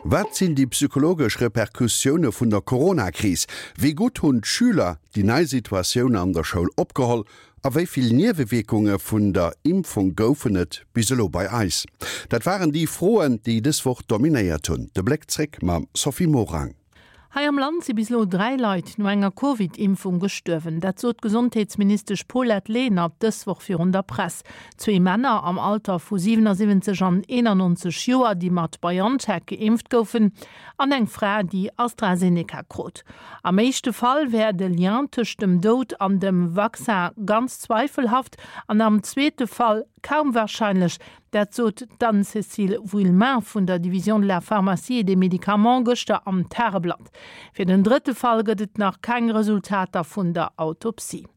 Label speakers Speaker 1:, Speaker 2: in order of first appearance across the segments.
Speaker 1: Wat sinn déi psychologesch Repercussioune vun der Corona-Kris? Wéi gutt hunn d'Schüler déi nei Situatioun an der Schoul opgeholl? A wéi vill Niewewierkunge vun der Impfung goufen et bis elo bei eis? Dat waren déi Froen, déi dës Woch dominéiert hunn. De Bléck zréck mam Sophie Morang.
Speaker 2: Hei am Land si bis elo 3 Leit no enger Covid-Impfung gestuerwen. Dat sot d'Gesondheetsministesch Paulette Lenert dës Woch virun der Press. Zwee Männer am Alter vu 77 an 91 Joer, déi mat BioNTech geimpft goufen, an eng Fra, déi AstraZeneca krut. Am éischte Fall wär de Lien tëscht dem Doud an dem Vaccin ganz zweifelhaft an am zweete Fall kaum warscheinlech, Dat sot d'Anne-Cécile Vuillemin vun der Division de la pharmacie et des médicaments gëschter am Tageblatt. Fir den drëtte Fall gëtt et nach keng Resultater vun der Autopsie.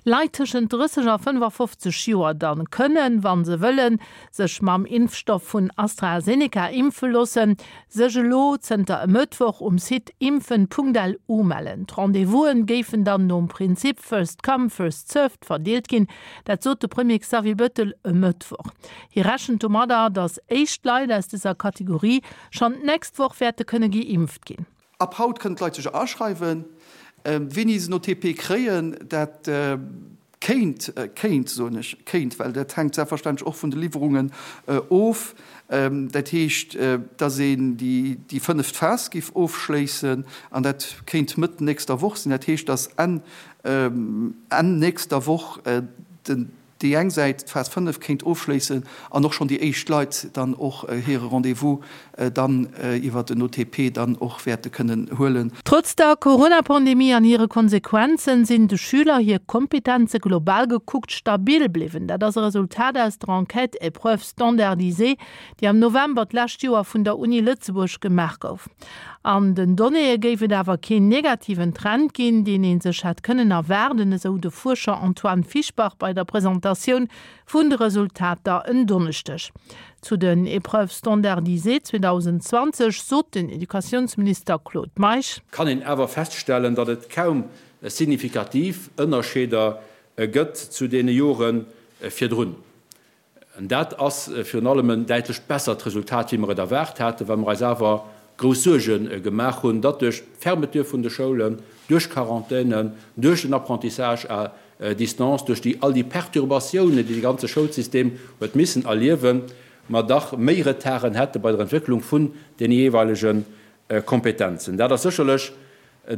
Speaker 2: Leit tëschent 30 a 55 Joer dann kënnen, wa se wëllen, sech mam Impfstoff vun AstraZeneca impfe loossen, sech elo zënter e Mëttwoch um Site impfen.lu mellen. D'Rendez-vous'en géifen dann nom Prinzip first come, first served verdeelt ginn. Dat sot de Premier Xavier Bettel e Mëttwoch. Hie rechent domadder, datt éischt Leit aus dëser Kategorie schonn d'nächst Woch wäerte kënne geimpft ginn.
Speaker 3: Ab haut kënnen d'Leit sech aschreiwen. Wéini se en OTP kréien, dat kéint, kéint soen ech, kéint, well dat hänkt selbstverständlech och vun de Liwwerungen of, dat heescht, datt een déi fënneft Phas géif ofschléissen an dat kéint Mëtt nächster Woch sinn. Dat heescht, datt Enn Enn nächster Woch den déi eng Säit d'Phas 5 kéint ofschléissen an och schonn déi éischt Leit dann och hire Rendez-vous dann iwwert den OTP dann och wäerte kënnen huelen.
Speaker 2: Trotz der Corona-Pandemie an hire Konsequenzen sinn de Schüler hir Kompetenze global gekuckt stabil bliwwen. Dat ass e Resultat aus der Enquête Épreuves standardisées, déi am November d'lescht Joer vun der Uni Lëtzebuerg gemaach gouf. An den Donnéeë géif et awer keen negativen Trend ginn, deen ee sech hätt kënnen erwaarden, esou de Fuerscher Antoine Fischbach bei der Presentatioun vun de Resultater en Donneschdeg. Zu den Épreuves standardisées 2020 sot den Educatiounsminister Claude Meisch.
Speaker 4: Kann een awer feststellen, datt et kaum signifikativ Ënnerscheeder gëtt zu deene Jore virdrun. Dat ass virun allem en däitlech bessert Resultat, wéi mer et erwaart haten, well mer eis awer grouss Suerge gemaach hunn, datt duerch d'Fermeture vun de Schoulen, duerch Quarantänen, duerch den Apprentissage à distance, duerch déi all déi Perturbatiounen, déi de ganze Schoulsystem huet missen erliewen, mer dach méi Retarden hätte bei der Entwécklung vun deene jeeweilege Kompetenzen. Dat ass sécherlech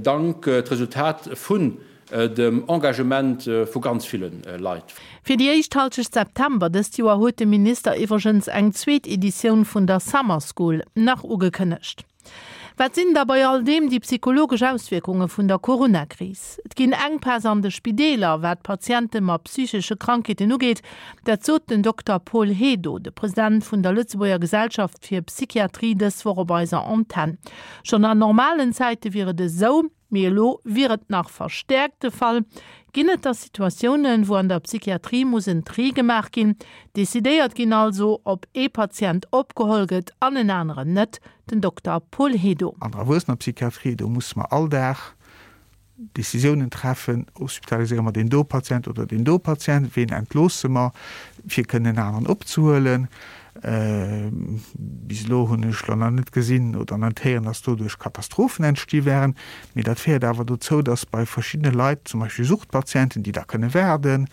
Speaker 4: Dank d'Resultat vun dem Engagement vu ganz ville Leit.
Speaker 2: Fir déi éischt Halschecht September dëst Joer huet de Minister iwwregens eng zweet Editioun vun der Summer School nach ugekënnegt. Wat sinn da bei all deem déi psychologesch Auswierkunge vun der Corona-Kris? Et ginn Enkpäss an de Spideeler, wat Patiente mat psychesche Krankheeten ugeet. Dat sot den Dokter Paul Hedo, de President vun der Lëtzebuerger Gesellschaft fir Psychiatrie dës Woch op eiser Antenn. Schonn an normalen Zäite wier et esou, mee elo wier et nach verstäerkt de Fall. Ginn et da Situatiounen, wou an der Psychiatrie muss en Tri gemaach ginn, decidéiert ginn also, ob ee Patient opgeholl gëtt an en aneren net? Den Dokter Paul Hedo.
Speaker 5: An der Erwuessenerpsychiatrie, do musse mer all Dag Decisiounen treffen, hospitaliséiere mer deen do Patient oder deen do Patient, ween entloosse mer, fir kënnen en aneren opzehuelen. Bis elo hunn ech lo nach net gesinn oder net héieren, dass doduerch Katastrophen entsti wären. Mee dat féiert awer dozou, dass bei verschiddene Leit, zum Beispill Suchtpatienten, déi da kënne waarden,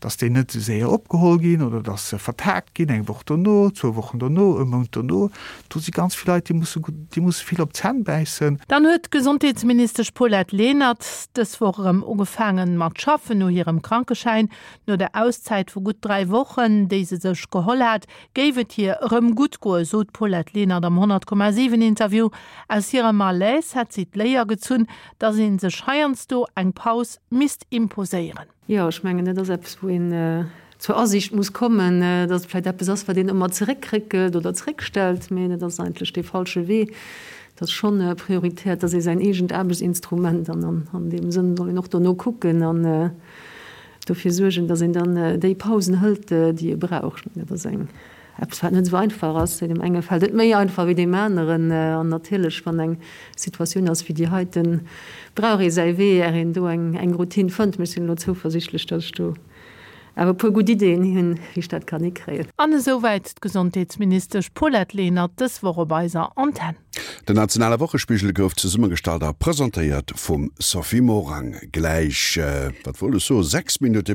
Speaker 5: dass déi net esou séier opgeholl ginn oder dass se vertagt ginn, eng Woch dono, zwou Wochen dono, e Mount dono. Do si ganz vill Leit, déi musse, déi musse vill op d'Zänn bäissen.
Speaker 2: Dann huet d'Gesondheetsministesch Paulette Lenert dës Woch erëm ugefaangen mat schaffen no hirem Krankeschäin. No der Auszäit vu gutt 3 Wochen, déi se sech geholl hat, géif et hir erëm gutt goen, sot d'Paulette Lenert am 100,7 Interview. Aus hirem Malaise hätt si d'Léier gezunn, datt ee sech heiansdo eng Paus misst imposéieren.
Speaker 6: Jo, ech mengen, dat ass eppes, wou een zur Asiicht muss kommen, datt et vläicht eppes ass, wat een ëmmer zeréckréckelt oder zeréckstellt, mä dat ass eigentlech dee falsche Wee. Et ass schonn prioritär, et ass ee säin eegent Aarbechtsinstrument an an deem Sënn soll een och dono kucken an dofir suergen, datt een dann déi Pausen hëlt, déi ee brauch. Ech mengen, dat ass eng Eppes, wat net esou einfach ass. Deem enge fält et méi einfach wéi deem aneren. An natierlech, wann eng Situatioun ass wéi déi heiten, brauch ee säi Wee, är een do eng Routine fënnt. Mee ech sinn elo zouversichtlech, datt ech do. Awer e puer gutt Ideeën hunn, wéi ech dat kann hikréien.
Speaker 2: An esouwäit d'Gesondheetsministesch Paulette Lenert dës Woch op eiser Antenn.
Speaker 1: Den nationale Wochespigel gouf zesummegestallt a presentéiert vum Sophie Morang. Gläich, wat wollt ech soen, 6 Minutte.